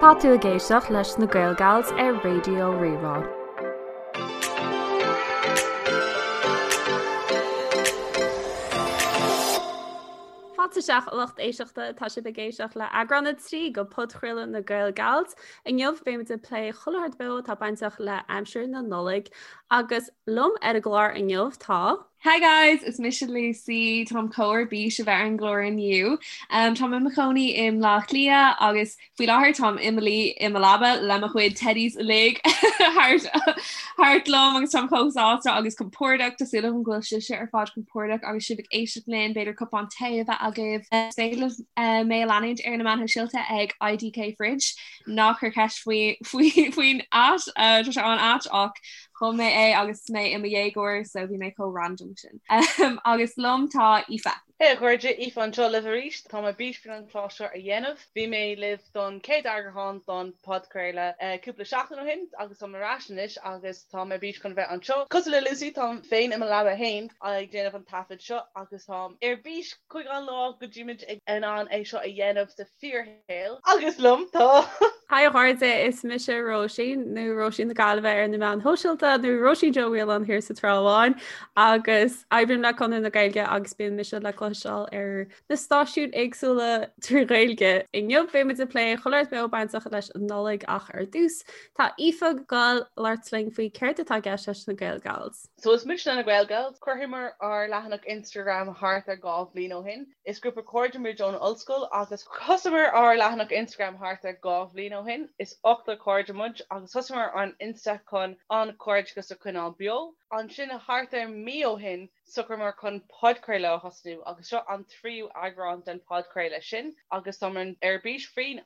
Tá tú ag éisteacht leis na Gaelgals ar Raidió Rí-Rá. Fáilte isteach a lucht éisteachta, tá sibh ag éisteacht le eagrán 3 de podchraoladh na Gaelgals. Inniu beimid ag plé chuile shórt beo atá bainteach le aimsir na Nollag agus liom ar an gclár inniu tá. Hi guys, is mise Lucy, táim chomh ar bís a bheith ar an gclár inniu. Um, táim i mo chónaí i mBleá Cliath agus faoi láthair táim i mo luí i mo leaba le mo chuid teddies uilig thart thart liom agus táim chomh sásta agus compordach Tá súil agam go bhfuil sibhse ar fad compordach agus sibh ag éisteacht linn, b'fhéidir cupán tae a bheith agaibh. Is féidir libh uh, mé a leanúint ar na meáin shóisialta ag IDK Fridge. Ná cuir ceist faoi faoi faoin at uh, tá sé an-ait ach Chum mé é agus mé i mo dhéagóir so bhí mé chomh random sin. Agus liom tá Aoife. Hey a chairde, Aoife anseo libh arís. Tá mé ar bís faoin an clár seo a dhéanamh. Bhí mé libh don chéad eagrán don podchraoladh cúpla seachtain ó shin agus táim ar ais anois agus tá mé ar bís chun bheith anseo. Cosúil le Lucy, táim féin i mo leaba fhéin ag déanamh an taifead seo agus táim ar bís chuig an lá go dtímid in ann é seo a dhéanamh sa fíor shaol. Agus liom tá. Hi a chairde, is mise Róisín, nó Róisín na Gaillimhe ar na meáin shóisialta, nó Róisín Joe Whelan thiar sa Trá Bháin, agus oibrím le Conradh na Gaeilge agus bíonn mise le cloisteáil ar na stáisiúin éagsúla trí Ghaeilge. Inniu beimid ag plé chuile shórt beo bainteach leis an Nollaig ach ar dtús, tá Aoife ag gabháil labhairt linn faoi céard atá i gceist leis na Gaelgals. So is muidne na Gaelgals. Chruthaíomar ár leathanach Instagram thart ar 2 bhliain ó shin. Is grúpa cairde muid ón ollscoil agus thosaíomar ár leathanach Instagram thart ar 2 bhliain ó shin. Is ochtar cairde muid agus thosaíomar an Insta chun an cairdeachas a choinneáil beo. Ansin thart ar mí ó shin socraíomar chun podchraoladh a thosnú agus seo an tríú eagrán den podchraoladh sin agus táimid ar bís faoin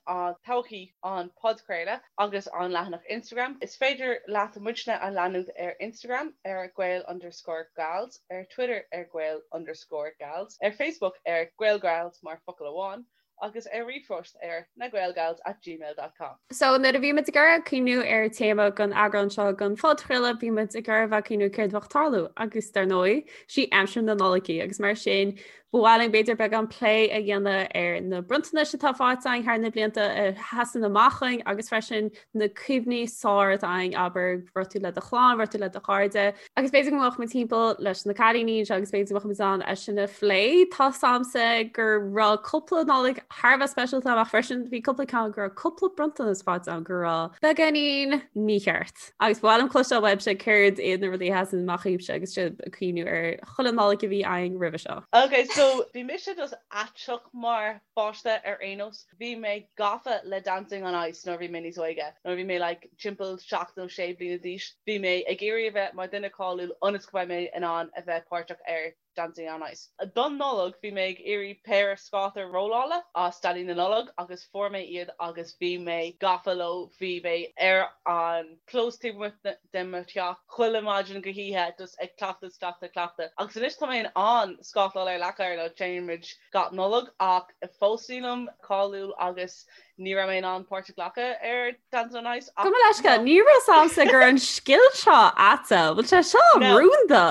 todhchaí an podchraoladh. agus an leathanach Instagram. Is féidir leat muidne a leanúint ar Instagram ar Gael underscore Gals, ar Twitter ar Gael underscore Gals, ar Facebook ar Gaelgals mar focal amháin, agus ar ríomhphost ar nagaelgals at gmail dot com. So nuair a bhí muid ag iarraidh cuimhniú ar téama don eagrán seo den phodchraoladh, bhí muid ag iarraidh a bheith ag cuimhniú céard a bheadh ag tarlú agus dar ndóigh, sí aimsir na Nollag í agus mar sin Ba mhaith linn b'fhéidir beagán plé a dhéanamh ar na bronntanais atá faighte againn thar na blianta a sheasann amach chugainn agus freisin na cuimhní is fearr atá againn, abair, raibh tú le do chlann, raibh tú le do chairde. Agus b'fhéidir go mbeadh muid timpeall leis na cailíní anseo agus b'fhéidir go mbeadh muid in ann é sin a phlé. Tá 's a'msa go raibh cúpla Nollaig thar a bheith speisialta amach freisin, bhí cúpla ceann go raibh cúpla bronntanas faighte agam go raibh beagáinín mícheart. Agus ba mhaith liom cloisteáil uaibhse céard iad na rudaí a sheasann amach dhaoibhse agus sibh ag cuimhniú ar chuile Nollaig a bhí againn roimhe seo. Ok, so bhí mise just aiteach mar pháiste ar aon nós. Bhí mé gafa le Dancing on Ice nuair a bhí mé níos óige. Nuair a bhí mé like timpeall 7 nó 6 bliana d'aois, bhí mé ag iarraidh a bheith mar duine cáiliúil ionas go mbeidh mé in ann a bheith páirteach ar Dancing on Ice. Don Nollaig bhí mé ag iarraidh péire scáta rollála as Daidí na Nollag agus fuair mé iad agus bhí mé gafa leo, bhí mé ar an clós taobh amuigh de mo theach chuile maidin go hoíche just ag cleachtadh is cleachtadh cleachtadh agus anois tá mé in ann scátáil ar leac oighir nó téann muid gach Nollaig ach fós nílim cáiliúil agus ní raibh mé in ann páirt a ghlacadh ar Dancing on Ice ach Gabh mo leithscéal, ní raibh 's a'msa go raibh an scil seo a'tsa, bhfuil sé seo rúnda?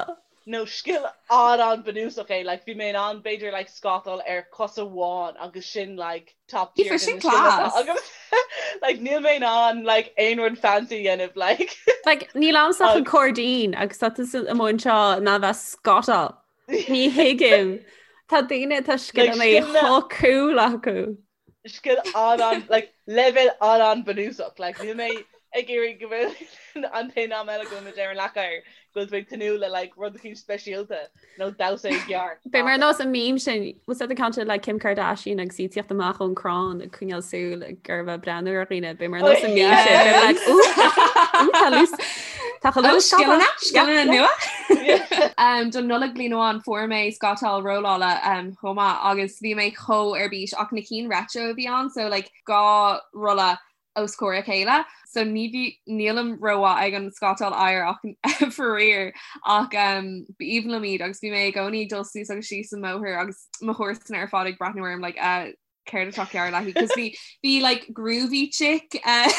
No scil an-an-bunúsach é, like bhí mé in ann b'fhéidir like scátáil ar cos amháin agus sin like top tier Aoife, sin class. agam. Like níl mé in ann like aon rud fancy a dhéanamh like. Like níl a'msa ach an cairdín agus tá tusa amuigh anseo in ann bheith scátáil. Ní thuigim. Tá daoine atá scileanna chomh cool acu. Scil an-an like leibhéal an-an-bunúsach like níl mé ag iarraidh go bhfuil an t-aon am eile go bhfuil muid ar an leac oighir go bhfuil tú ag tnúth le like rud eicínt speisialta nó damhsa i gceart. Beidh mar nós an meme sin was that the ceann sin le Kim Kardashian agus í ag tíocht amach ón crann ag coinneáil súil ag ar bheith breathnú ar dhaoine beidh mar nós an meme sin beidh like ooh ooh tá lús tá chu lús Scileanna scileanna nua. Um, don Nollaig bliain amháin fuair mé scátáil rollála um, chomh maith agus bhí mé chomh ar bís ach na cinn retro a bhí ann so like 2 rolla os comhair a chéile so ní bhí nílim rómhaith ag an scátáil oighir ach faraor ach um, b'aoibhinn liom iad agus bhí mé i gcónaí ag dul suas agus síos an mbóthar agus mo chomharsana ar fad ag breathnú orm like uh, céard atá cearr léi cos bhí bhí like groovy chick uh,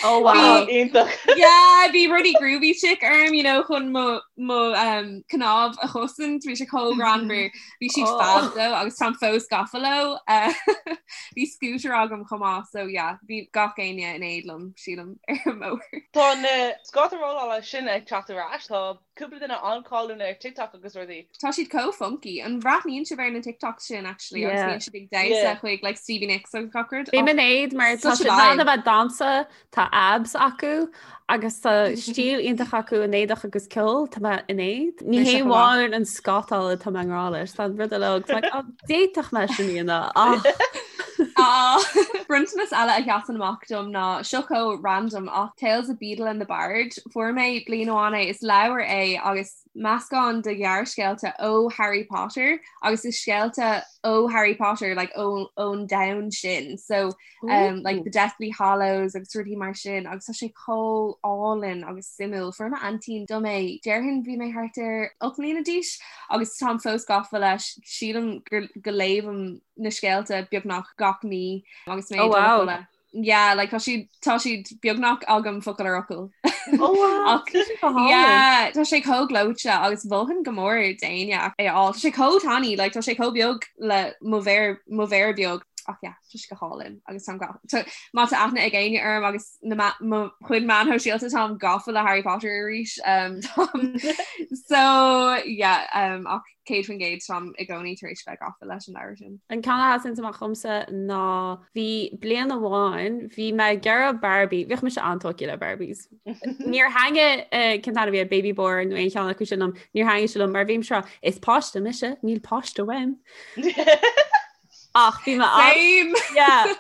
Oh wow. Iontach. Yeah, bhí rudaí Groovy Chick orm, you know, chun mo mo um, cnámh a chosaint, bhí sé chomh greannmhar. Bhí siad Oh. fab though agus táim fós gafa leo. Uh, Bhí scooter agam chomh maith, so yeah, bhí gach éinne in éad liom, sílim, ar an mbóthar. Tá na scáta rollála sin ag teacht ar ais, tá cúpla duine an-cháiliúil ar TikTok agus rudaí. Tá siad chomh funky. An bhreathnaíonn sibh ar na TikToks sin actually agus Yeah. bíonn siad ag damhsa Yeah. chuig like Stevie Nicks agus gach rud? Bím in éad mar tá Such a siad in ann vibe. a bheith ag damhsa, tá abs acu agus tá stíl iontach acu in éadach agus ceol, tá mé in éad. Ní Mise hé chomh maith. amháin an scátáil atá mé i ngrá leis, tá an rud uilig, tá like, "Ó, d'fhéadfadh mé sin a dhéanamh ach Ah, Bronntanas eile a sheasann amach dom ná seo chomh random ach Tales of Beedle and the Bard. Fuair mé bliain amháin é, is leabhar é agus meascán de ghearrscéalta ó Harry Potter agus is scéalta ó Harry Potter like ó ón domhan sin. So um, like the Deathly Hallows agus rudaí mar sin agus tá sé chomh álainn agus suimiúil. Fuair m'aintín dom é déarfainn bhí mé thart ar 8 mbliana d'aois agus táim fós gafa leis sílim gur go léimim na scéalta beagnach gach mí agus mé Oh, ag dul a wow. chodladh. Yeah, like tá siad tá siad beagnach agam focal ar fhocal. Oh, wow. Ach, yeah, tá sé chomh gleoite agus mholfainn go mór d'éinne é a fháil. Tá sé chomh tiny, like tá sé chomh beag le mo mhéar mo mhéar beag. Ach yeah, tá sé go hálainn agus táim ga- tá- má tá aithne ag éinne orm agus na ma- mo chuid meáin shóisialta táim gafa le Harry Potter arís. Um, táim- so yeah, um, ach 100% táim i gcónaí tar éis bheith gafa leis an leabhar sin. An ceann a sheasann amach dhomsa ná bhí bliain amháin bhí mé ag iarraidh Barbie, bhíodh mise an-tógtha le Barbies. Níor thaitnigh cén t-ainm a bhí air, Baby Born nó aon cheann acu sin liom, níor thaitnigh sé liom mar bhí mise ag rá, is páiste mise, níl páiste uaim. Ach bhí mé an- Same! Yeah.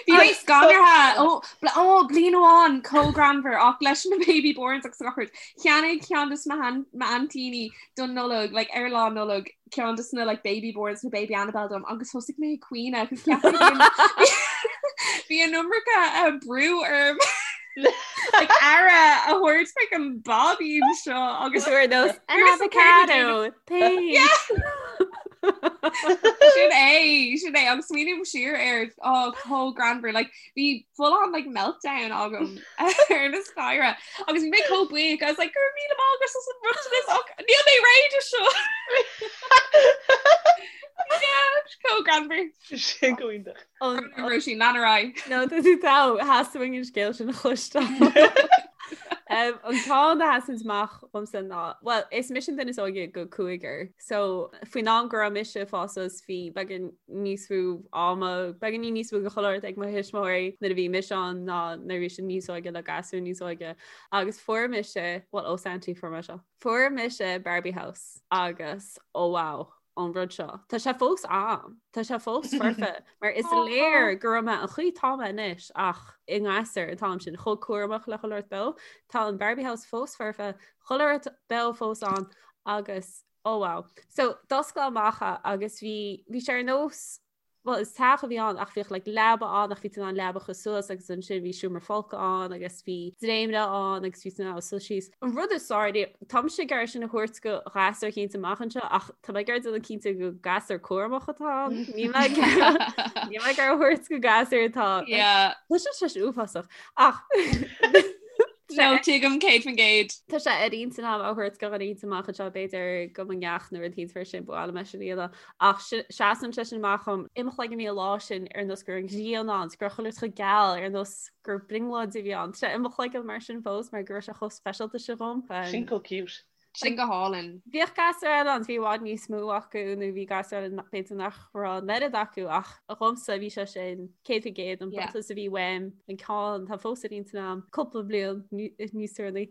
Bhí mé scanraithe ó ó bliain amháin chomh greannmhar ach leis na Baby Borns agus gach rud. Cheannaigh ceann de m'aintíní don Nollaig like ar lá Nollag ceann de na like Baby Borns nó Baby Annabelle dom agus thosaigh mé ag caoineadh agus cheap mé bhí an iomarca uh, brú orm like aire a thabhairt like an báibín seo agus Agus ar nós an Here's the card avocado thanks. Sin é sin é agus smaoiním siar air á chomh greannmhar like bhí full on like meltdown agam ar na staighre agus bhí mé chomh buíoch I was like go raibh míle maith agat as an bronntanas ach níl mé réidh do seo. Yeah, chomh greannmhar. Sin go hiontach. An- Róisín lean ar aghaidh. No, tá tú togha, theastaigh uainn an scéal sin a chloisteáil. Um, an ceann a sheasann amach dhomsa ná, well, is mise an duine is óige de chúigear. So, faoin am go raibh mise ag fás suas bhí beagán níos mó ama, beagáinín níos mó de chuile shórt ag mo thuismitheoirí nuair a bhí mise ann ná nuair a bhí siad níos óige le gasúir níos óige. Agus fuair mise, well, ó Santy fuair mé seo. Fuair mise Barbie House agus, oh wow, an rud seo. Tá sé fós a'm. Tá sé fós foirfe mar is léir go raibh mé an chaoi atá mé anois ach i ngasúr an t-am sin chomh cúramach le chuile shórt beo. Tá an Barbie House fós foirfe, chuile shórt beo fós ann agus oh wow. So d'oscail amach é agus bhí bhí sé ar nós Bhuel, is teach a bhí ann ach bhíodh like leaba ann ach bhí tú in ann leaba a chur suas agus ansin bhí seomra folctha ann agus bhí dréimire ann agus bhí tú in ann suí síos. An rud is fearr, táimse ag iarraidh sin a thabhairt do ghasúr eicínt amach anseo ach tá mé ag iarraidh déanamh cinnte go gasúr cúramach atá ann. Níl mé ag níl mé ag iarraidh a thabhairt go gasúr atá Yeah. Tá sé sé uafásach ach No, tuigim 100%. Tá sé ar intinn agam a thabhairt do dhuine eicínt amach anseo b'fhéidir do mo neacht nó rud eicínt mar sin ba mhaith liom é sin a dhéanamh. Ach seasann sé sin amach dhom i mo chloigeann bhí an lá sin ar nós go raibh an ghrian ann, go raibh chuile shórt chomh geal ar nós gur brionglóid a bhí ann. Tá sé i mo chloigeann mar sin fós mar go raibh sé chomh speisialta sin dhom. Sin chomh cute. Sin go hálainn. Bhíodh gasúir eile ann, bhí i bhfad níos mó acu nó bhí gasúir eile b'fhéidir nach raibh an oiread acu ach dhomsa bhí sé sin 100% an bronntanas a bhí uaim an ceann atá fós ar intinn agam cúpla bliain níos deireanaí.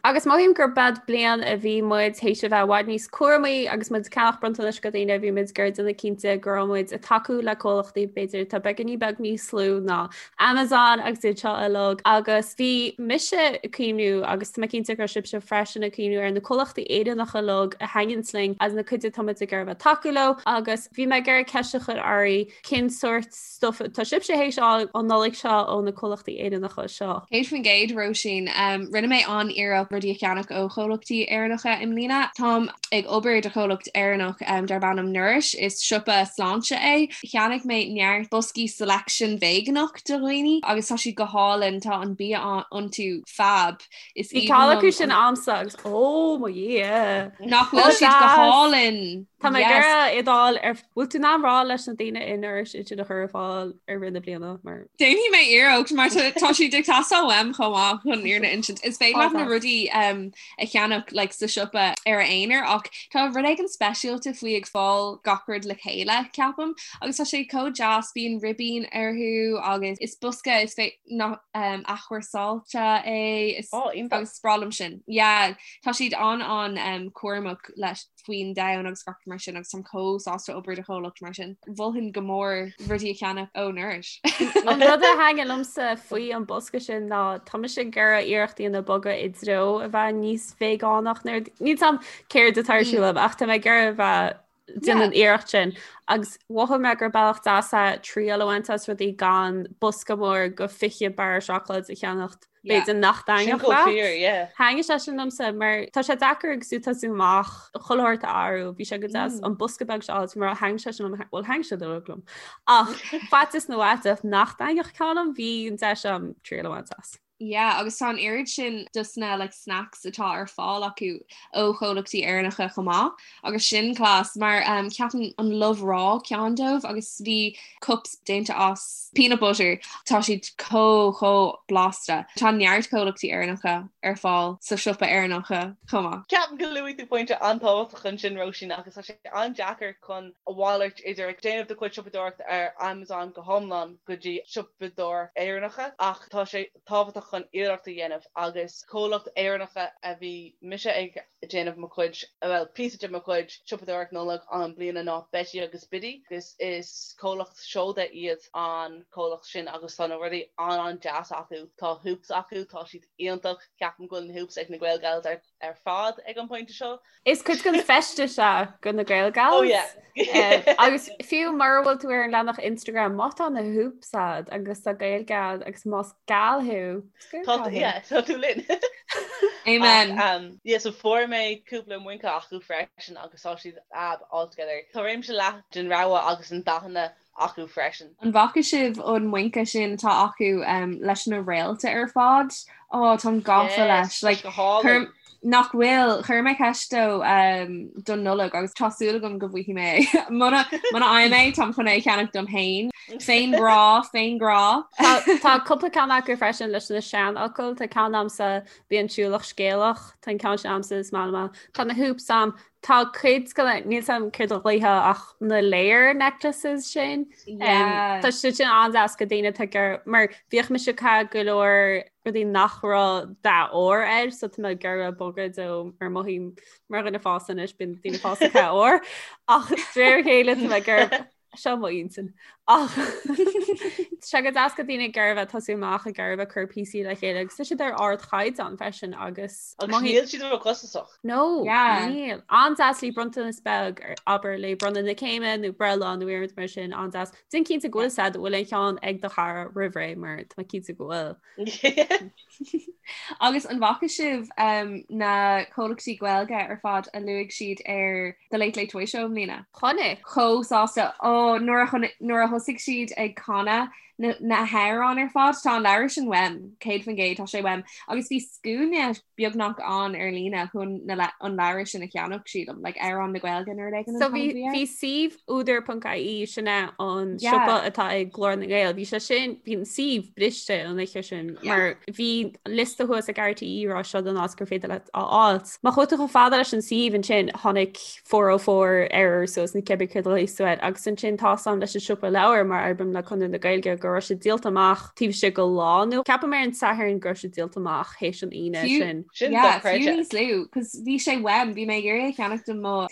Agus mothaím gur b'ead bliain a bhí muid théis a bheith i bhfad níos cúramaí agus muid ag ceannach bronntanais do dhaoine bhí muid ag iarraidh déanamh cinnte go raibh muid ag tacú le comhlachtaí b'fhéidir atá beagáinín beag níos lú ná Amazon agus iad seo uilig agus bhí mise ag cuimhniú agus tá mé cinnte go raibh sibhse freisin. sin ag cuimhniú ar na comhlachtaí Éireannacha uilig a thaitníonns linn agus na cuid atá muid ag iarraidh a bheith tacú leo agus bhí mé ag iarraidh ceist a chur oraibh cén sórt stuff atá sibhse théis fháil an Nollaig seo ó na comhlachtaí Éireannacha seo. 100% Róisín. Rinne mé an-iarracht rudaí a cheannach ó chomhlachtaí Éireannacha i mbliana. Táim ag obair do chomhlacht Éireannach darb ainm Nourish. Is siopa sláinte é. Cheannaigh mé neart boscaí selection veigeánach do dhaoine agus tá siad go hálainn. Tá an bia iontu fab. Is Bhí ceann acu sin a'msa agus ó mo Dhia! Nach bhfuil siad go hálainn! Tá mé ag iarraidh iad a fháil ar bhfuil tú in ann rá leis na daoine i Nourish iad sin a chur ar fáil i rith na bliana mar. Déanfaidh mé iarracht mar tá siad ag teastáil uaim chomh maith chun fhírinne a insint. Is féidir leat na rudaí a cheannach like, sa siopa ar a aonar ach tá rud éigin speisialta faoi ag fáil gach rud le chéile ceapaim agus tá sé chomh deas bíonn ribín orthu agus is bosca is fé nach athchúrsáilte é is oh, agus is breá liom sin. Yeah, tá siad an an cúramach leis faoin domhan agus gach mar sin agus táim chomh sásta obair do chomhlacht mar sin. Mholfainn go mór rudaí a cheannach ó Nourish. An rud a thaitnigh liomsa faoi an bosca sin ná tá mise ag iarraidh iarracht a dhéanamh bogadh i dtreo a bheith níos veigeánach níl a fhios a'm céard atá ar siúl agam ach tá mé ag iarraidh a bheith déanamh an iarracht sin agus mhothaigh mé gur bealach deas é triail a bhaint as rudaí gan bosca mór go 20 barra seacláid a cheannacht b'fhéidir nach dtaitneodh leat. Thaitnigh sé sin liomsa mar tá sé deacair agus tú ag tosú amach chuile shórt a athrú, bhí sé go deas an bosca beag seo a mar thaitnigh sé sin liom, bhuel thaitnigh sé uilig liom. Ach faitíos na bhfaiteach nach dtaitneodh ceann liom, bhí an deis a'm triail a bhaint as. Yeah, agus tá an oiread sin dos na like, snacks atá ar fáil acu ó chomhlachtaí Éireannacha chomh maith agus sin class mar um, ceapaim an Love Raw ceann dóibh agus bhí cups déanta as peanut butter tá siad chomh chomh blasta. Tá neart comhlachtaí Éireannacha ar fáil sa siopa Éireannacha chomh maith. Ceapaim go luaigh tú pointe an-tábhachtach ansin Róisín agus tá sé an-deacair chun a mhalairt idir ag déanamh do chuid siopadóireachta ar Amazon go hiomlán go dtí siopadóireacht Éireannacha ach tá sé tábhachtach chun iarracht a dhéanamh agus comhlacht Éireannacha a bhí mise ag déanamh mo chuid, bhuel píosa de mo chuid siopadóireacht Nollag an bliana ná Betty agus Biddy agus is comhlacht seoda iad an comhlacht sin agus tá na rudaí an-an-deas acu. Tá hoops acu, tá siad iontach, ceapaim go bhfuil na hoops ag na Gael Gals ar ar fad ag an pointe seo. Is cuid den feisteas é go na Gael Gals. Oh yeah. Agus fiú mura bhfuil tú ar an leathanach Instagram, má tá na hoops a'd agus tá Gaeilge a'd agus más gal thú, Tá yeah, tá tú linn. Amen. Ach, um, yeah, so fuair mé cúpla muince acu freisin agus tá siad ab altogether. Tá réimse leathan den rogha agus an dathanna acu freisin. An bhfaca sibh an muince sin atá acu leis na réalta ar fad? Ó táim gafa leis. Like, chuir, nach bhfuil, chuir mé ceist dó um, don Nollaig agus tá súil agam go bhfaighidh mé é. Muna muna bhfaighim é, táim chun é a cheannach dom féin. Féin grá, féin grá. Tá tá cúpla ceann acu freisin leis na seanfhocail, tá ceann a'msa bí an siúlach scéalach, tá an ceann sin a'msa is maith liom. Tá na hoops a'm, Tá cuid de na, níl 's a'm céard a ghlaofá ach na layer necklaces sin. Yeah. Tá siad sin an-deas go daoine atá ag mar bhíodh mise ag caitheamh go leor rudaí nach raibh dath óir air so tá mé ag iarraidh bogadh ó mar mothaím mar dhuine fásta anois bíonn daoine fásta ag caitheamh ór ach de réir a chéile tá mé ag iarraidh Seo mo intinn. Ach tá sé go deas go daoine ag iarraidh a bheith tosú amach ag iarraidh a bheith ag cur píosaí le chéile agus tá siad ar ardchaighdeán freisin agus Agus níl siad ró-chostasach. No, Yeah. níl. An-deas le bronntanas beag ar abair le bronnadh na céime nó breithlá nó rud mar sin an-deas. Déan cinnte go bhfuil said bhfuil an ceann ag do chara roimh ré mar tá mé cinnte go bhfuil. Agus an bhfaca sibh um, na comhlachtaí Gaeilge ar fad a luaigh siad ar The Late Late Toy Show i mbliana? Chonaic. Chomh sásta. Ó, nuair a chonaic, nuair a thosaigh siad ag canadh na, na hamhráin ar fad, tá an leabhar sin uaim, 100%, tá sé uaim. Agus bhí scuaine beagnach ann ar líne chun na, an leabhar sin a cheannach, sílim, like amhráin na Gaeilge nó rud éigin an So t-ainm bhí a bhí air. bhí suíomh údar.ie sin é an Yeah. siopa atá ag Glór na nGael. Bhí sé sin bhí an suíomh briste an oíche sin Yeah. mar bhí liosta thuas ag RTÉ rá seo don áit gur féidir leat a fháilt. Má chuaigh tú chomh fada leis an suíomh ansin tháinig 404 error suas nó cibé céard a ghlaos tú air agus ansin tá 's a'm leis an siopa leabhar mar oibrím le Conradh na Gaeilge go raibh sé díolta amach taobh istigh de lá nó ceapaim ar an Satharn go raibh sé díolta amach théis an Aoine Fiú- sin. Sin Yeah, dochreidte. fiú níos lú, cos bhí sé uaim, bhí mé ag iarraidh a cheannach do mo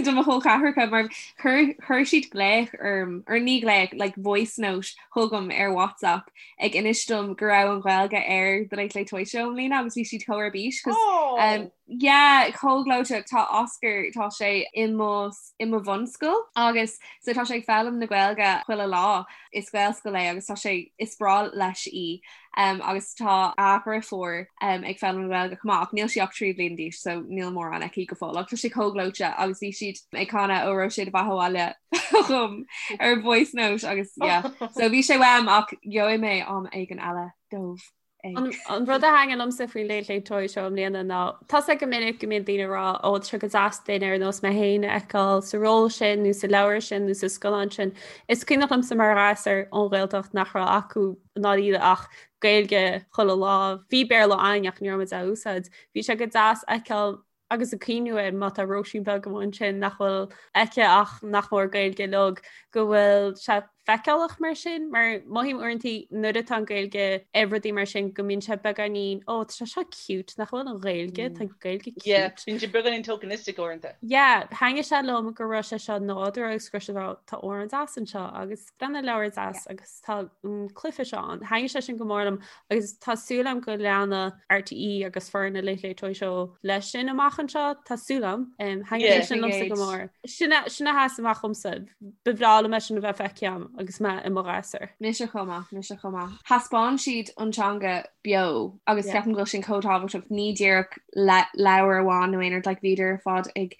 do mo chol ceathracha mar chuir chuir siad glaoch orm, or ní glaoch, like voice note chugam ar WhatsApp ag inis dom go raibh an Ghaeilge ar The Late Late Toy Show i mbliana agus bhí siad chomh ar bís cos Oh! um, Yeah, chomh gleoite. Tá Oscar, tá sé i mo i mo bhunscoil agus so tá sé ag foghlaim na Gaeilge chuile lá. Is Gaelscoil é agus tá sé is breá leis í. Um, agus tá a dheirfiúr um, ag foghlaim na Gaeilge chomh maith ach níl sí ach 3 bliana d'aois so níl mórán aici go fóill ach tá sé chomh gleoite agus bhí siad ag canadh Ó raibh sé do bheatha abhaile chugam ar voice note agus yeah. So bhí sé uaim ach gheobhaidh mé am éigin eile dóibh. An rud a thaitnigh liomsa faoin Late Late Toy Show i mbliana ná tá sé go minic go mbíonn daoine ag rá ó tá sé go deas duine ar nós mé féin a fheiceáil sa ról sin nó sa leabhar sin nó sa scannán sin. Is cuimhneach liomsa mar ghasúr ón Ghaeltacht nach raibh acu ná iad ach Gaeilge chuile lá. Bhí Béarla againn ach ní raibh muid á úsáid. Bhí sé go deas a fheiceáil agus ag cuimhniú air má tá Róisín beag amuigh ansin nach bhfuil aici ach nach mór Gaeilge uilig go bhfuil sé feiceálach mar sin, mar mothaím uaireanta nuair atá an Ghaeilge ar rudaí mar sin go mbíonn sé beagáinín ó tá sé seo cute nach bhfuil an Ghaeilge tá Gaeilge cute. Yeah, bíonn sé beagáinín tokenistic uaireanta. Yeah, thaitnigh sé liom go raibh sé seo nádúrtha agus go raibh sé tá amhrán deas anseo agus breathnaigh leabhar deas agus tá an cluiche seo ann. Thaitnigh sé sin go mór liom agus tá súil agam go leanfaidh RTÉ agus foireann na Late Late Toy Show leis sin amach anseo, tá súil agam. Thaitnigh sé sin liomsa go mór. Sin a sheas amach dhomsa. Ba bhreá liom é sin a bheith feicthe agam agus mé i mo ghasúr. Mise chomh maith, mise chomh maith. Thaispeáin siad an teanga beo agus ceapaim go bhfuil sin chomh tábhachtach, ní díreach leabhar amháin nó aon rud, like bhíodar ar fad ag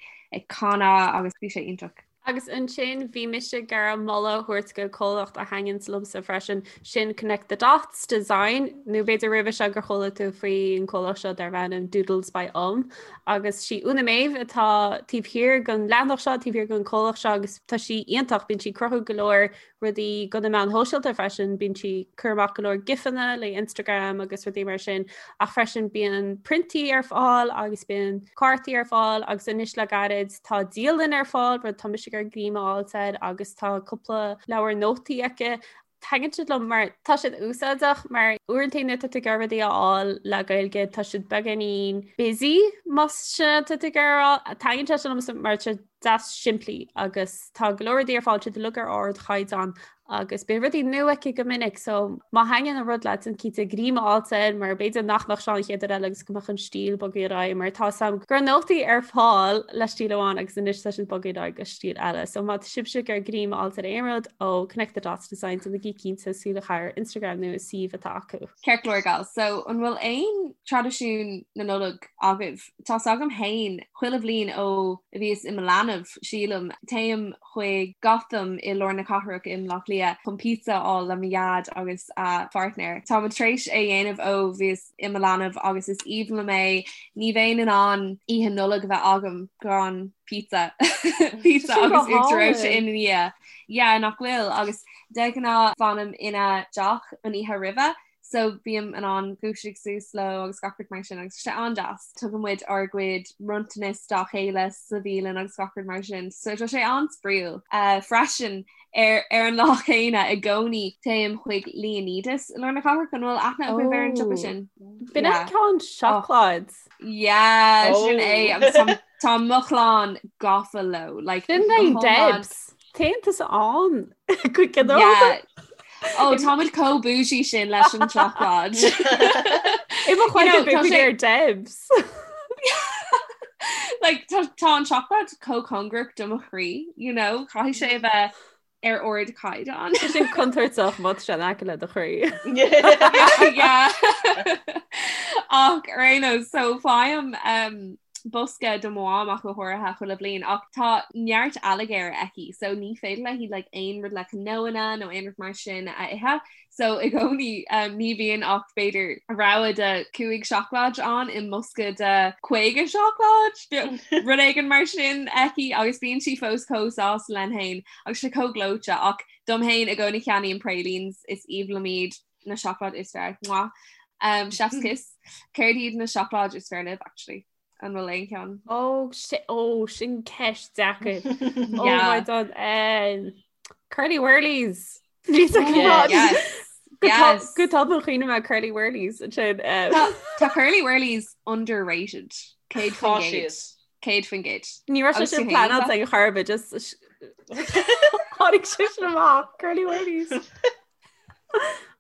canadh agus bhí sé iontach. Agus ansin bhí mise ag iarraidh moladh a thabhairt go comhlacht a thaitníonns liomsa freisin, sin Connect the Dots Design, nó b'fhéidir roimhe seo gur chuala tú faoi an comhlacht seo darb ainm Doodles by Um. Agus sí Úna Méabh atá taobh thiar den leathanach seo, taobh thiar den comhlacht seo agus tá sí iontach, bíonn sí ag cruthú go leor rudaí do na meáin shóisialta freisin, bíonn sí ag cur amach go leor gifanna le Instagram agus rudaí mar sin, ach freisin bíonn priontaí ar fáil agus bíonn cártaí ar fáil agus anois le gairid tá dialann ar fáil, rud tá mise ag iarraidh greim a fháilt air agus tá cúpla leabhar nótaí aici. Taitníonn siad liom mar tá siad úsáideach mar uaireanta nuair atá tú ag iarraidh rudaí a fháil le Gaeilge tá siad beagáinín busy más sin atá tú ag iarraidh a rá. Taitníonn sé sin liomsa mar tá siad deas simplí agus tá go leor rudaí ar fáil siad uilig ar ardchaighdeán agus bíonn rudaí nua aici go minic so má thaitníonn an rud leat déan cinnte greim a fháilt air mar b'fhéidir nach mbeadh seo an chéad uair eile agus go mbeadh an stíl bogtha ar aghaidh mar tá a fhios agam go raibh nótaí ar fáil le stíl amháin agus anois tá siad bogtha ar aghaidh go stíl eile so má tá sibhse ag iarraidh greim a fháilt ar aon rud ó Connect the Dots Design déanaigí cinnte súil a chaitheamh ar Instagram nó an suíomh atá acu. Ceart go leor gals, so an bhfuil aon traidisiún na Nollag agaibh? Tá's agam fhéin, chuile bhliain ó a bhíos i mo leanbh, sílim, téim chuig Gotham i lár na cathrach i mBleá Cliath chun pizza a fháil le mo dhaid agus a pháirtnéir. Táimid tar éis é a dhéanamh ó bhíos i mo leanbh agus is aoibhinn liom é. Ní bheinn in ann oíche Nollag a bheith agam gan pizza. Pizza agus uachtar reoite ina dhiaidh. Yeah, nach bhfuil? Agus de ghnáth fanaim ina dteach an oíche roimhe So bím in ann dúiseacht suas leo agus gach rud mar sin agus tá sé an-deas. Tugann muid ár gcuid bronntanas dá chéile sa bhialann agus gach rud mar sin. So tá sé an-spraíúil. Freisin ar ar an lá céanna i gcónaí téim chuig Leonidas i lár na cathrach an bhfuil aithne agaibh ar an siopa sin? B'in an ceann seacláid. Yeah, sin é agus tá tá mo chlann gafa leo. Like, Sin é Debs. Téann tusa ann go ginearálta. Ó táimid chomh bougie sin leis an tseacláid. I mo chloigeann bhí ar Debs. Like tá tá an seacláid chomh cóngarach do mo chroí, you know, caithfidh sé a bheith ar ardchaighdeán. Tá sin contúirteach má tá sé in aice le do chroí. Yeah. Ach ar aon nós, so faighim um, bosca do mo mham ach go háirithe chuile bhliain ach tá neart ailléirge aici so ní féidir léi like aon rud le cnóanna nó aon rud mar sin a ithe so i gcónaí um, ní bhíonn ach b'fhéidir rogha de 5 seacláid ann i mbosca de 50 seacláid rud éigin mar sin aici agus bíonn sí fós chomh sásta léi féin agus sé chomh gleoite ach dom féin i gcónaí ceannaím pralines is aoibhinn liom iad na seacláid is fearr. Mwah. Um, chef's kiss. Céard iad na seacláid is fearr libh actually? An bhfuil aon cheann? Ó ó sin ceist deacair. Oh my God. Um, Curly Wurlies. Yes. Yes. Go tobann chuimhnigh mé Curly Wurlies sin. Um... Tá Curly Wurlies underrated. 100%. 100%. Ní raibh sé sin pleanáilte ag chor ar bith just tháinig sé sin amach Curly Wurlies.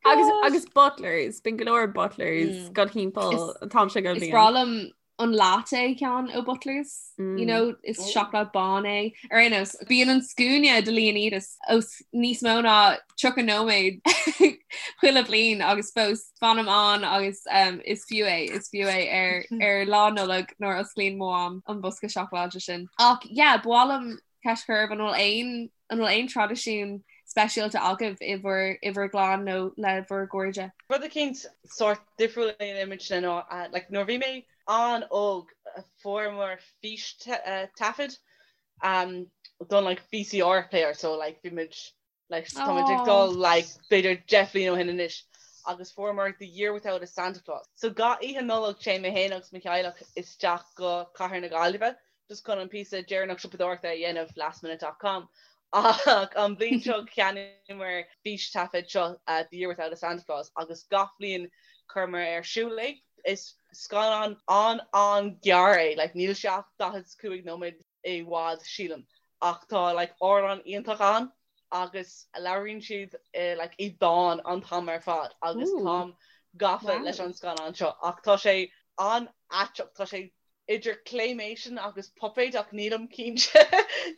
Agus agus Butlers, bíonn go leor Butlers mm. go timpeall an t-am seo gach bliain. Is breá liom an latte ceann ó Butlers, you know, is seacláid bán é. Ar aon nós, bíonn an scuaine do Leonidas os níos mó ná 30 nóiméad chuile bhliain agus fós fanaim ann agus um, is fiú é, is fiú é ar, ar lá Nollag nuair a osclaíonn mo mham an bosca seacláide sin. Ach yeah, ba mhaith liom ceist a chur oraibh an bhfuil aon an bhfuil aon traidisiún speisialta agaibh i bhur i bhur gclann nó le bhur gcairde? Rud eicínt sórt difriúil a dhéanaimidne ná like nuair a bhí mé an-óg fuaireamar fístaifead don like VCR player so like bhí muid Like tá muid ag dul like b'fhéidir 10 bhliain ó shin anois agus fuaireamar The Year Without a Santa Claus. So gach oíche Nollag téann mé féin agus mo theaghlach isteach go Cathair na Gaillimhe just chun an píosa deireanach siopadóireachta a dhéanamh lastminute dot com ach an bhliain seo cheannaíomar fístaifead seo The Year Without a Santa Claus agus gach bliain chuireamar ar siúl é. Is scannán an-an-ghearr é, like níl sé ach 45 nóiméad i bhfad sílim ach tá like amhrán iontach ann agus labhraíonn siad like i dán an t-am ar fad agus táim gafa leis an scannán seo ach tá sé an-aiteach tá sé idir claymation agus puipéid ach nílim cinnte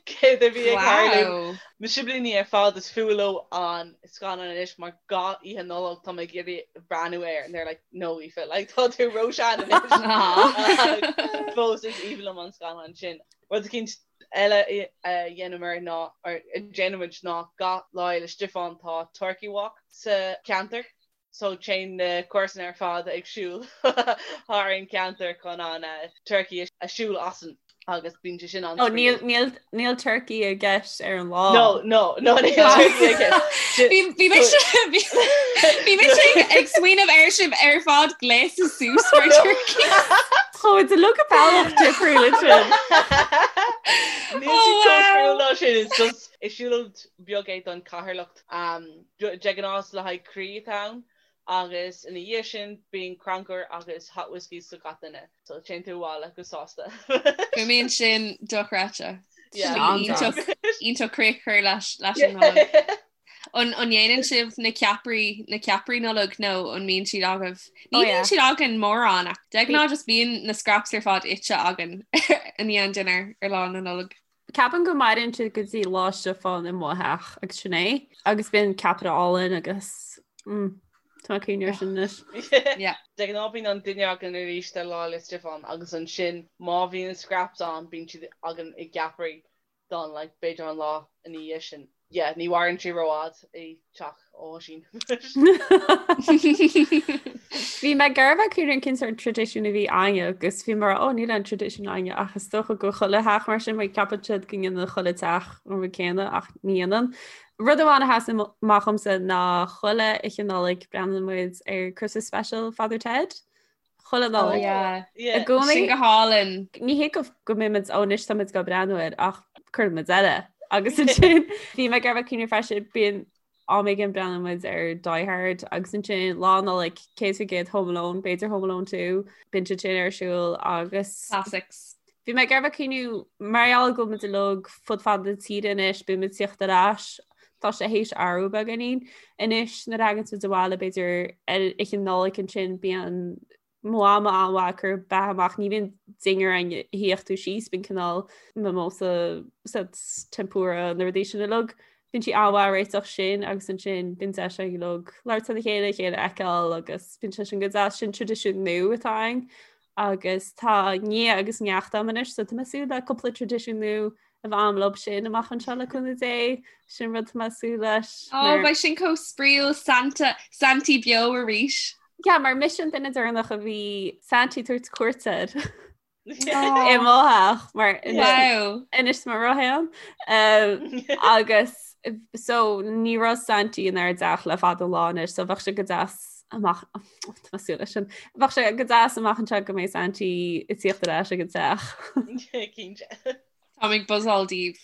céard a bhí ag tarlú. Mo siblíní ar fad is fuath leo an scannán anois mar gach oíche Nollag tá mé ag iarraidh breathnú air and they're like no Aoife like tá tú róshean anois. Fós is aoibhinn liom an scannán sin. Rud eicínt eile a dhéanamar ná or a déanaimid ná gach Lá Fhéile Stiofáin tá Turkey Walk sa cheantar so téann na comharsana ar fad ag siúl thar an ceantar chun an turkey a siúl asainn agus bíonn sé sin an Oh, níl, níl, níl turkey i gceist ar an lá. No, no, no, níl turkey i gceist. Bhí bhí mise bhí bhí mise ag smaoineamh ar sibh ar fad gléasta suas mar turkey. Tá de look bealach difriúil sin. Níl sé chomh difriúil ná sin, it's just is siúlóid beag é don Cheatharlach. De ghnáth le haghaidh croí atá ann agus ina dhiaidh sin bíonn crannchur agus hot whiskies do gach duine. So téann tú abhaile go sásta. Fuaimníonn sin dochreidte. Iontach iontach críoch a chur leis leis an Nollaig. An an ndéanann sibh na ceapairí na ceapairí Nollag nó an mbíonn siad agaibh? Ní bhíonn siad againn mórán ach de ghnáth just bíonn na scraps ar fad ite againn i ndiaidh an dinnéir ar lá na Nollag. Ceapaim go maireann siad go dtí Lá Stiofáin i mo theach agus sin é. Agus bíonn ceapaire álainn agus mm, tá mé ag cuimhneamh air sin anois. Yeah. De ghnáth bíonn an dinnéar againn arís ar Lá 'le Stiofáin agus ansin má bhíonn scraps ann bíonn siad againn i gceapairí don like b'fhéidir an lá ina dhiaidh sin. Yeah, ní mhaireann sé rófhad i teach Oisín. Bhí mé ag iarraidh a bheith ag cuimhneamh cén sórt traidisiún a bhí againne agus bhí mé ó níl aon traidisiún againne ach is dócha go chuile theach mar sin mar ceapann siad go ndéanann chuile teach an rud céanna ach ní dhéanann. Rud amháin a sheasann amach dhomsa ná chuile oíche Nollag breathnaíonn muid ar Christmas Special Father Ted. Chuile Nollaig. I gcónaí. Sin go hálainn. Ní hé go go mbeimid ó anois táimid ag breathnú air ach cuireann muid eile. Agus ansin bhí mé ag iarraidh cuimhneamh freisin bíonn am éigin breathnaíonn muid ar Die Hard agus ansin lá Nollag 100% Home Alone, b'fhéidir Home Alone 2, bíonn siad sin ar siúl agus Classics. Bhí mé ag iarraidh cuimhneamh mar gheall go bhfuil muid uilig fud fad na tíre anois, bíonn muid ag tíocht ar ais, tá sé théis athrú beagáinín. Anois nuair a thagann muid abhaile b'fhéidir ar oíche Nollag ansin bíonn mo mham an-mhaith ag cur beatha amach, ní bhíonn dinnéar ann a shuífeadh tú síos, bíonn cineál mimosa, tempura, na rudaí sin uilig. Bíonn sí an-mhaith ag réiteach sin agus ansin bíonn deis againn uilig labhairt lena chéile, a chéile a fheiceáil agus bíonn sé sin go deas, sin traidisiún nua atá ann. Agus tá nia agus neacht agam anois so tá mé ag súil le cúpla traidisiún nua a bheith agam leo sin amach anseo le cúnamh Dé, sin rud tá mé ag súil leis. Ó, beidh sin chomh spraíúil Santa, Santaí beo arís. Yeah, mar mise an duine deireanach a bhí Santaí ag tabhairt cuairt air i mo theach mar anois tá mo rogha ann. Agus so ní raibh Santaí inár dteach le fada an lá anois so bheadh sé go deas amach tá mé ag súil leis sin. Bheadh sé go deas amach anseo go mbeidh Santaí ag tíocht ar ais ag an teach. Cinnte. Táim ag buzzáil daoibh.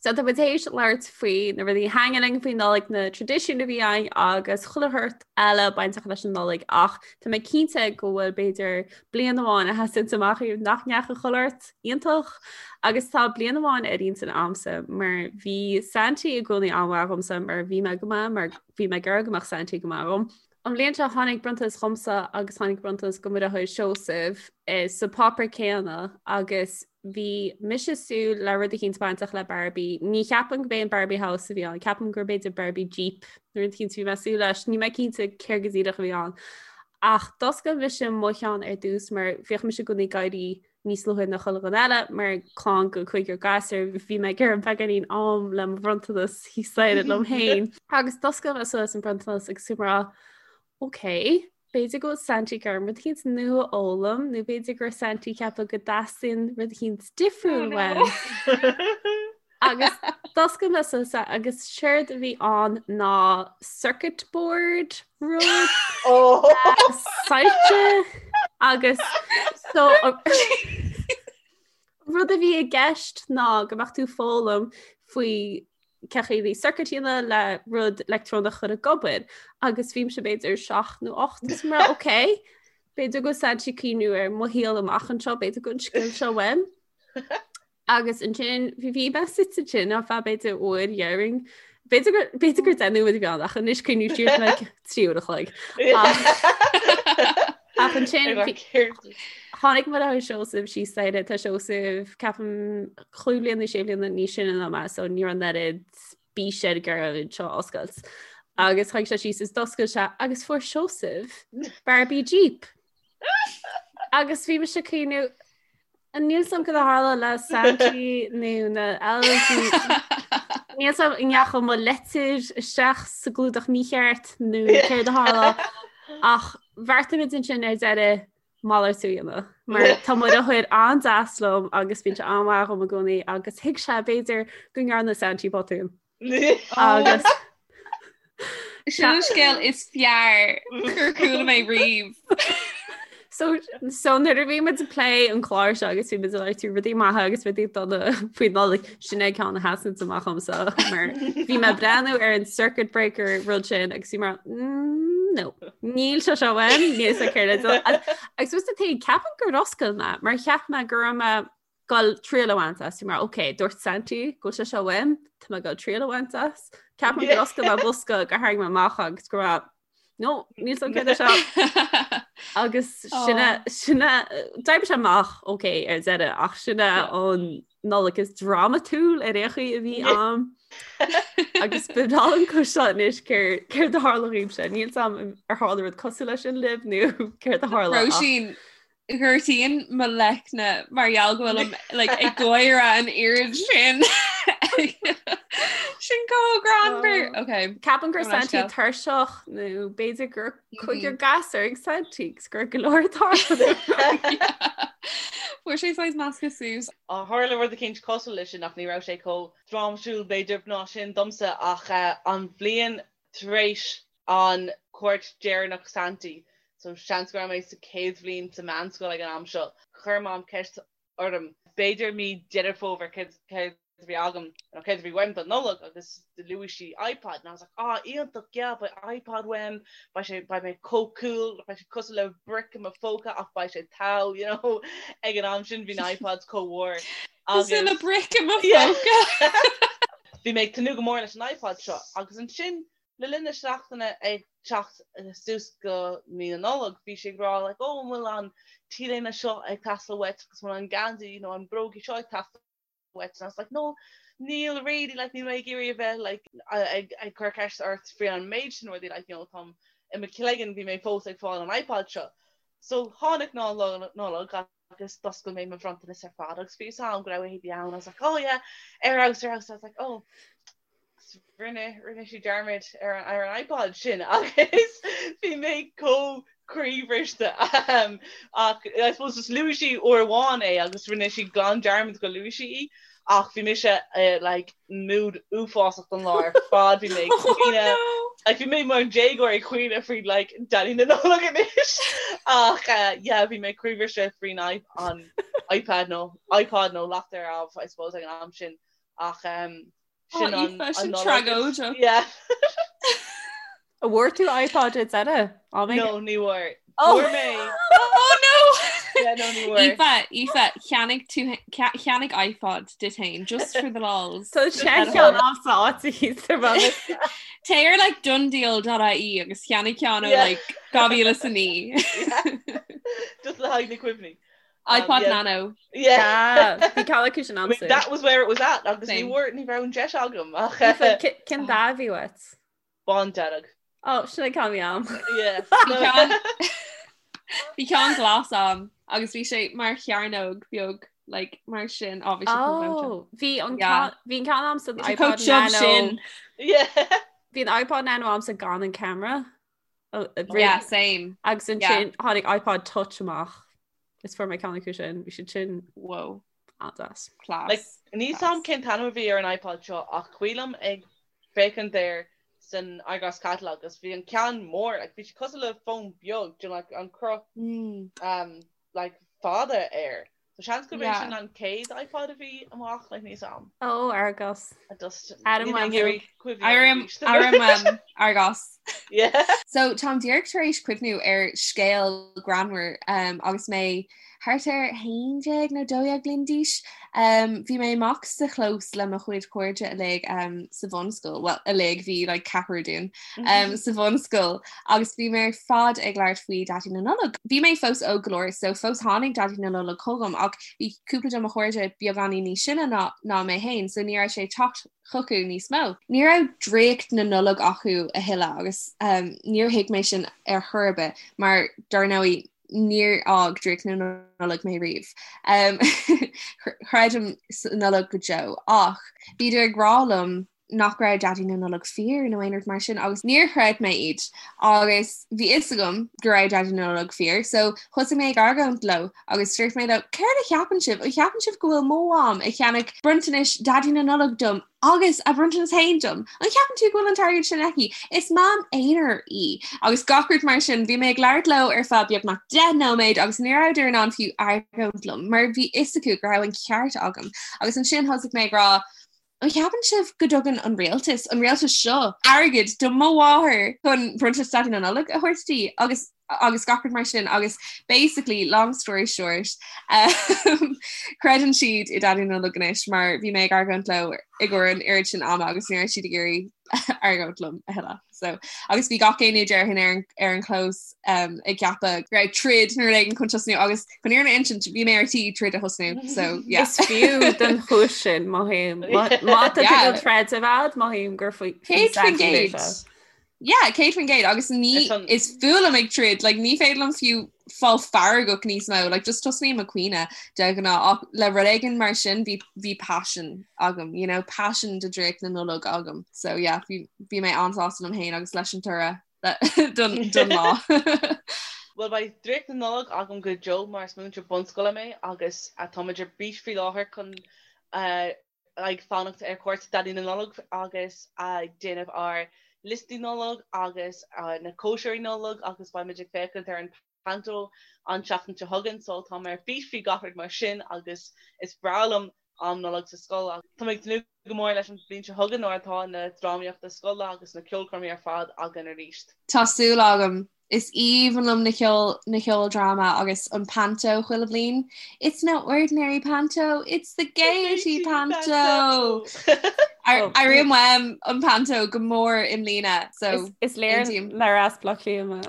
So tá muid théis labhairt faoi na rudaí a thaitníonn linn faoin Nollaig, na traidisiúin a bhí againn agus chuile shórt eile bainteach leis an Nollaig ach tá mé cinnte go bhfuil b'fhéidir bliain amháin a sheasann amach daoibh nach ndeachaigh chuile shórt iontach agus tá bliain amháin ar intinn a'msa mar bhí Santaí i gcónaí an-mhaith dhomsa mar bhí mé go maith mar bhí mé ag iarraidh go mbeadh Santaí go maith dhom. An bhliain seo tháinig bronntanas dhomsa agus tháinig bronntanas go mo dheartháir Seosamh eh, sa páipéar céanna agus bhí mise ag súil le rud eicínt bainteach le Barbie. Ní cheapaim gurb é an Barbie House a bhí ann, ceapaim gur b'fhéidir Barbie Jeep nó rud eicínt a bhí mé ag súil leis, níl mé cinnte céard go díreach a bhí ann. Ach d'oscail mise mo cheann ar dtús mar bhíodh mise i gcónaí ag éirí níos luaithe ná chuile dhuine eile mar clann go cúigear gasúr bhí mé ag iarraidh beagáinín am le mo bhronntanas thíos staighre liom féin. Agus d'oscail mé suas an bronntanas agus bhí mé ag rá ok, b'fhéidir go bhfuil Santy ag iarraidh rud eicínt nua a fhoghlaim nó b'fhéidir go raibh Santy ag ceapadh go dteastaíonn rud eicínt difriúil uaim. Agus d'oscail mé suas é agus séard a bhí ann ná circuit board rud soilse agus so rud a bhí i gceist ná go mbeadh tú ag foghlaim faoi cén chaoi le circuit a dhéanamh le rud leictreonach a chur ag obair agus bhí mise b'fhéidir 7 nó 8 is mar ok b'fhéidir go bhfuil Santy ag cuimhniú ar mo shaol amach anseo b'fhéidir go bhfuil an scil seo uaim. Agus ansin bhí bhí mé suite ansin ar feadh b'fhéidir uair dhéarfainn. B'fhéidir gur b'fhéidir gur 10 nóiméad a bhí ann ach anois cuimhním siar like 3 uair a chloig. Ach ansin tháinig mo dheartháir Seosamh síos staighre tá Seosamh ceapaim chúig bliana nó sé bliana níos sine ná mé so ní raibh an oiread bís air ag iarraidh seo a oscailt. Agus tháinig sé síos is d'oscail sé agus fuair Seosamh Barbie Jeep. Agus bhí mise ag cuimhniú Níl a fhios agam cad a tharla le Santy nó na elves. Níl a fhios agam an ndeachaigh mo leitir isteach sa gclúdach mícheart nó céard a tharla ach bheartaigh muid ansin ar deireadh malartú a dhéanamh. Mar tá mo dheartháir an-deas liom agus bíonn sé an-mhaith dhom i gcónaí agus thuig sé b'fhéidir go ndearna Santy botún. Agus Sin an scéal is fearr gur chuala mé riamh. So, so nuair a bhí muid ag plé an clár seo agus bhí muid ag labhairt faoi rudaí maithe agus rudaí dona faoi Nollaig sin é ceann a sheasann amach dhomsa mar bhí mé ag breathnú ar an circuit breaker rud sin agus bhí mar mm, no níl sé seo uaim níl sé céard agus was the thing ceapaim gur oscail mé mar cheap mé go raibh mé goil triail a bhaint as mar ok dúirt Santy go bhfuil sé seo uaim tá mé goil triail a bhaint as Ceapaim gur oscail mé bosca gur tharraing mé amach agus go raibh no níl a fhios agam céard é seo agus sinne sinne d'oibrigh sé amach ok ar deireadh ach sin é an Nollaig is drámatúil ar aon chaoi a bhí ann agus ba bhreá liom cloisteáil anois céard a tharla dhaoibhse níl a fhios agam ar tharla rud cosúil leis sin libh nó céard a tharla Róisín Gortaíonn mo leicne mar gheall go bhfuilim like, ag gáire an oiread sin. Sin chomh greannmhar. Oh. Okay. Ceapaim go raibh Santy tuirseach nó b'fhéidir gur cúigear gasúr ag Santy agus go raibh go leor tarlú. Fuair sé saghas measctha suas. Tharla rud eicínt cosúil leis sin ach ní raibh sé chomh drámatúil b'fhéidir ná sin domsa ach eh, an bhliain tar éis an cuairt deireanach Santy, so seans go raibh mé sa chéad bhliain sa meánscoil ag an am seo, chuir Mam ceist orm, b'fhéidir mí Deireadh Fómhair, céard a bhí agam nó céard a bhí uaim don Nollaig agus luaigh sí iPod and I was like ah iontach yeah beidh iPod uaim, beidh sé, beidh mé chomh cool, beidh sé cosúil le brick i mo phóca ach beidh sé togha, you know, ag an am sin bhí na iPods chomh mhór agus. Cosúil le brick i mo phóca. Bhí mé ag tnúth go mór leis an iPod seo agus ansin Le linn na seachtaine ag teacht suas go mí na Nollag bhí sí ag rá like oh an bhfuil an t-léine seo ag teastáil uait agus an bhfuil an geansaí nó an brógaí seo ag teastáil uait and I was like no níl really like níl mé ag iarraidh a bheith like ag ag cur ceist ort faoi an méid sin rudaí like you know táim i mo chloigeann bhí mé fós ag fáil an iPod seo. So tháinig lá Nollag agus d'oscail mé mo bhronntanas ar fad agus bhí fhios a'm go raibh éadaí ann I was like oh yeah ar fheabhas ar fheabhas I was like oh rinne rinne sí dearmad ar an ar an iPod sin agus bhí mé chomh croíbhriste um, ach I suppose just luaigh sí uair amháin é agus rinne sí glan dearmad go luaigh sí í ach bhí mise uh, like mood uafásach don lá ar fad bhí mé ag oh, caoineadh like bhí mé mar déagóir ag caoineadh faoi like Daidí na Nollag anois ach uh, yeah bhí mé croíbhriste faoin an iPad nó iPod nó lacht ar ámh I suppose ag an am sin ach um, sin an an sin tragóideach. Yeah. An bhfuair tú iPod ar deireadh? No, ní bhfuair. Oh. Fuair mé Oh no! Yeah, no, ní bhfuair. Aoife, Aoife, cheannaigh tú cheannaigh iPod duit féin, just for the lols. Tá sé ceann agamsa áit thíos ar bhealach. Téigh ar like donedeal.ie agus cheannaigh ceann ó Yeah. like 2009. Just le haghaidh na cuimhní. Um, iPod yeah. Nano. Yeah. Bhí ceann acu sin I mean, agamsa. that was where it was at agus ní Same. bhfuair ní raibh an deis agam ach Aoife, Cén dath a bhí uait? Bándearg. Ó, sin an ceann a bhí agam. Yeah. Bhí ceann Bhí ceann glas agam agus bhí sé mar chearnóg beag like mar sin á bhí sé chomh gleoite. Oh, bhí an Yeah. ceann bhí an ceann agamsa an Bhí sé iPod chomh tiubh Nano. sin. Yeah. Bhí an iPod Nano agamsa gan an camera. Oh, Yeah, same. Agus Yeah. ansin tháinig iPod Touch amach. Is fuair mé ceann acu sin, bhí siad sin Whoa. an-deas. Class. Like, níl a fhios agam cén t-ainm a bhí ar an iPod seo ach cuimhin liom ag féachaint air san Argos Catalogue agus bhí an ceann mór, like, bhí sé cosúil le fón beag, do you know, like, an cruth Mm. um, like, fada air. So seans gurb é Yeah. sin an chéad iPod a bhí amach, like, níl a fhios agam. Ó, Argos. I just Adam níl mé ag Wembley. iarraidh cuimhneamh air Airím arís. airím um, Argos. Yeah. So táim díreach tar éis cuimhniú ar scéal greannmhar um, agus mé thart ar 11 nó 12 bliain d'aois. Um, bhí mé amach sa chlós le mo chuid cairde uilig um, sa bhunscoil, well uilig bhí like, ceathrar dúinn um, sa bhunscoil agus bhí mé ar fad ag labhairt faoi Daidí na Nollag. Bhí mé fós óg go leor so fós tháinig Daidí na Nollag chugam ach bhí cúpla de mo chairde beagáinín níos sine ná, ná mé féin so ní raibh sé ag teacht chucu níos mó. Ní raibh draíocht na Nollag acu a thuilleadh agus um, níor thuig mé sin ar chor ar bith mar dar ndóigh níor fhág draíocht na Nollag mé riamh. Um, chreidim sa Nollag go deo ach bhíodar ag rá liom nach raibh Daidí na Nollag fíor nó aon rud mar sin agus níor chreid mé iad agus bhí fhios agam go raibh Daidí na Nollag fíor so thosaigh mé ag argóint leo agus dúirt mé leo céard a cheapann sibh? An cheapann sibh go bhfuil mo mham ag ceannach bronntanais Daidí na Nollag dom agus a bronntanas féin dom? An cheapann tú go bhfuil an t-airgead sin aici? Is mam aonair í agus gach rud mar sin. Bhí mé ag labhairt leo ar feadh beagnach 10 nóiméad agus ní rabhadar in ann fiú argóint liom mar bhí fhios acu go raibh an ceart agam agus ansin thosaigh mé ag rá An cheapann sibh go dtugann an rialtas, an rialtas seo, airgead do mo mháthair chun bronntanas Daidí na Nollag a thabhairt di agus agus gach rud mar sin agus basically, long story short, um, creideann siad i Daidí na Nollag anois mar bhí mé ag argóint leo i gcomhair an oiread sin ama agus ní raibh siad ag iarraidh argóint liom a thuilleadh. So, agus bhí gach éinne déarfainn ar an, ar an chlós um, ag ceapadh go raibh troid nó rud éigin chun tosnú agus chun an fhírinne a insint bhí mé ar tí troid a thosnú. So, yeah. Is fiú don chúis sin mothaím. Má tá tú troid a bhead mothaím gur faoi 100%. Yeah, 100% agus ní is fuath liom ag troid, like, ní féidir liom fiú fáil feargach níos mó, like, just tosnaím ag caoineadh de ghnáth ach le rud éigin mar sin bhí bhí passion agam, you know, passion do draíocht na Nollag agam. So yeah, bhí bhí mé an-sásta liom féin agus leis an toradh don don lá. Bhuel beidh draíocht na Nollag agam go deo mar is múinteoir bunscoile mé agus táimid ar bís faoi láthair chun ag fanacht ar chuairt Daidí na Nollag agus ag déanamh ár liostaí Nollag agus na cóisirí Nollag agus beimid ag féachaint ar an Panto an tseachtain seo chugainn so tá mé ar bís faoi gach rud mar sin agus is breá liom am Nollag sa scoil agus tá mé ag tnúth go mór leis an bhliain seo chugainn nuair atá na drámaíochta scoile agus na ceolchoirmí ar fad againn arís. Tá súil agam Is aoibhinn liom na ceol na ceoldráma agus an panto chuile bhliain. It's no ordinary panto, it's the Gaiety panto! Airím uaim an panto go mór i mbliana so Is léir aontaím. nár as Bleá Cliath mé.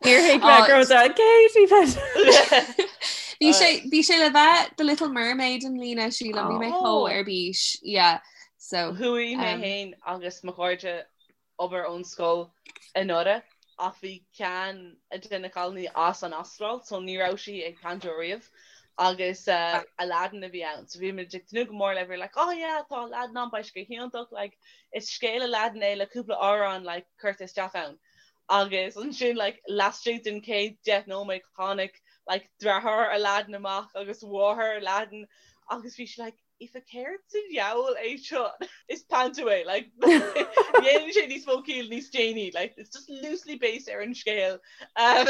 Níor thuig mé go raibh an Gaiety panto. Bhí sé bhí sé le bheith The Little Mermaid i mbliana sílim, bhí mé chomh ar bís. Yeah. So Chuaigh mé féin agus mo chairde obair ón scoil anuraidh ach bhí ceann de na cailíní as an Astráil so ní raibh sí ag panto riamh agus Aladdin a bhí ann so bhí muid ag tnúth go mór le bhí like oh yeah tá Aladdin ann beidh sé go hiontach like is scéal Aladdin é le cúpla amhrán like curtha isteach ann agus ansin like laistigh den chéad 10 nóiméad tháinig like deartháir Aladdin amach agus mháthair Aladdin agus bhí sí like Aoife céard sa diabhal é seo? Is panto é, like, dhéanann sé níos mó ciall níos déanaí, like, it's just loosely based ar an scéal. Um,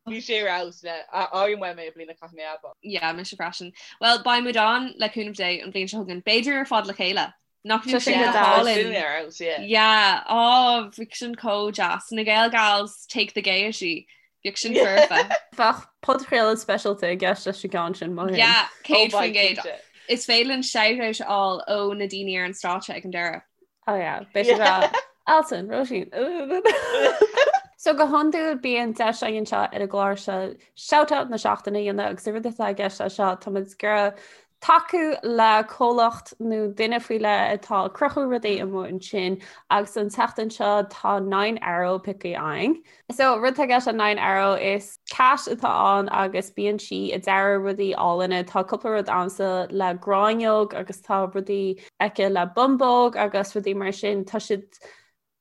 bhí sé ar fheabhas le airím uaim é i mbliana caithfidh mé a admháil. Yeah, mise freisin. Well, beidh muid ann le cúnamh Dé an bhliain seo chugainn. B'fhéidir ar fad le chéile. Nach Tá sin sin go go deas. hálainn. Sin ar fheabhas, yeah. Yeah, oh, bhí sin chomh deas. Na Gael Gals take the gaiety. Bheadh sin foirfe. Bheadh podchraoladh speisialta i gceist leis an gceann sin, mholfainn. Yeah, 100%. Is féidir linn shout-out a fháil ó na daoine ar an stáitse ag an deireadh. Oh yeah, beidh siad ag rá, Alison, Róisín. So go hiondúil bíonn deis againn anseo ar an gclár seo shout-out na seachtaine a dhéanamh agus an rud atá i gceist leis seo, tá muid ag iarraidh tacú le comhlacht nó duine faoi leith atá ag cruthú rudaí amuigh ansin agus an tseachtain seo tá Nine Arrow pioctha againn. So rud atá i gceist le Nine Arrow is cat atá ann agus bíonn sí ag dearadh rudaí álainne. Tá cúpla rud agamsa le gráinneog agus tá rudaí aici le bumbóg agus rudaí mar sin. Tá siad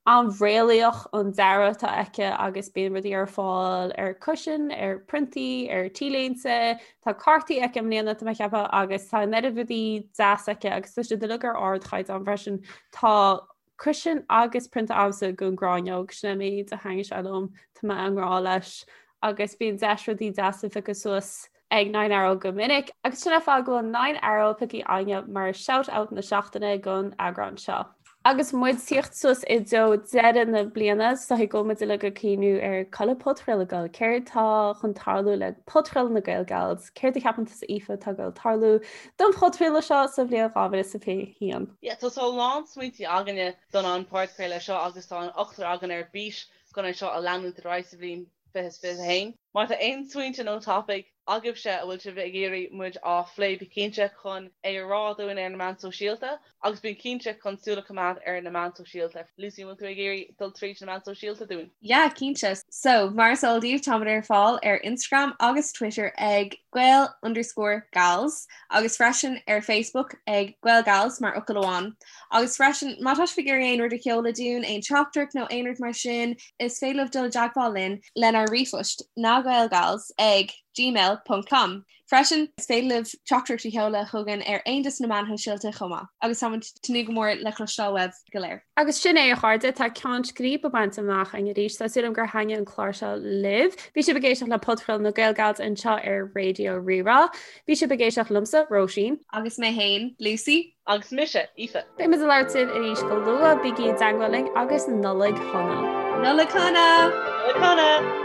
an-réalaíoch an dearadh atá aici agus bíonn rudaí ar fáil ar cushion, ar priontaí, ar t-léinte. Tá cártaí aici i mbliana tá mé ag ceapadh agus tá an oiread rudaí deas aici agus tá siad uilig ar ardchaighdeán freisin. Tá cushion agus prionta agamsa den ghráinneog, sin é an méid a thaitníonn sé liom, tá mé i ngrá leis agus bíonn deis rudaí deasa a phiocadh suas ag Nine Arrow go minic agus sin an fáth go bhfuil Nine Arrow pioctha againne mar shout out na seachtaine don eagrán seo. Agus muid ag tíocht suas i dtreo deireadh na bliana, is dóigh go bhfuil muid uilig ag cuimhniú ar cá bhfuil an podchraoladh ag dul, céard tá chun tarlú le podchraoladh na Gael Gals, céard a cheapann tusa Aoife atá ag dul tarlú don phodchraoladh seo sa bhliain 2021? Yeah, tá a lán smaointí againne don an podchraoladh seo agus tá an ochtar againn ar bís chun é seo a leanúint ar aghaidh sa bhliain 2021. Má tá aon smaointe nó topaic agaibhse a bhfuil sibh ag iarraidh muid á phlé bí cinnte chun é a rá dúinn ar na meáin sóisialta agus bí cinnte chun súil a choimeád ar na meáin sóisialta. Lucy, an bhfuil tú ag iarraidh dul tríd na meáin sóisialta dúinn? Yeah, cinnte. So, mar is eol daoibh, táimid ar fáil ar Instagram agus Twitter ag gael underscore gals agus freisin ar Facebook ag GaelGals mar fhocal amháin. Agus freisin, má tá sibh ag iarraidh aon rud a sheoladh dúinn, aon teachtaireacht nó aon rud mar sin, is féidir libh dul i dteagmháil linn lenár ríomhphost nagaelgals ag gmail ponc com. Freisin, is féidir libh teachtaireacht a sheoladh chugainn ar aon de na meáin shóisialta chomh maith. Agus táimid ag tnúth go mór le cloisteáil uaibh go léir. Agus sin é, a chairde, tá ceann scríbe bainte amach againn arís. Tá súil agam gur thaitnigh an clár seo libh. Bhí sibh ag éisteacht le Podchraoladh na GaelGals anseo ar Raidió Rí-Rá. Bhí sibh ag éisteacht liomsa, Róisín. Agus mé féin, Lucy. Agus mise, Aoife. Beidh muid ag labhairt libh arís go luath, bígí i dteagmháil linn agus Nollaig Shona! Nollaig Shona! Nollaig Shona!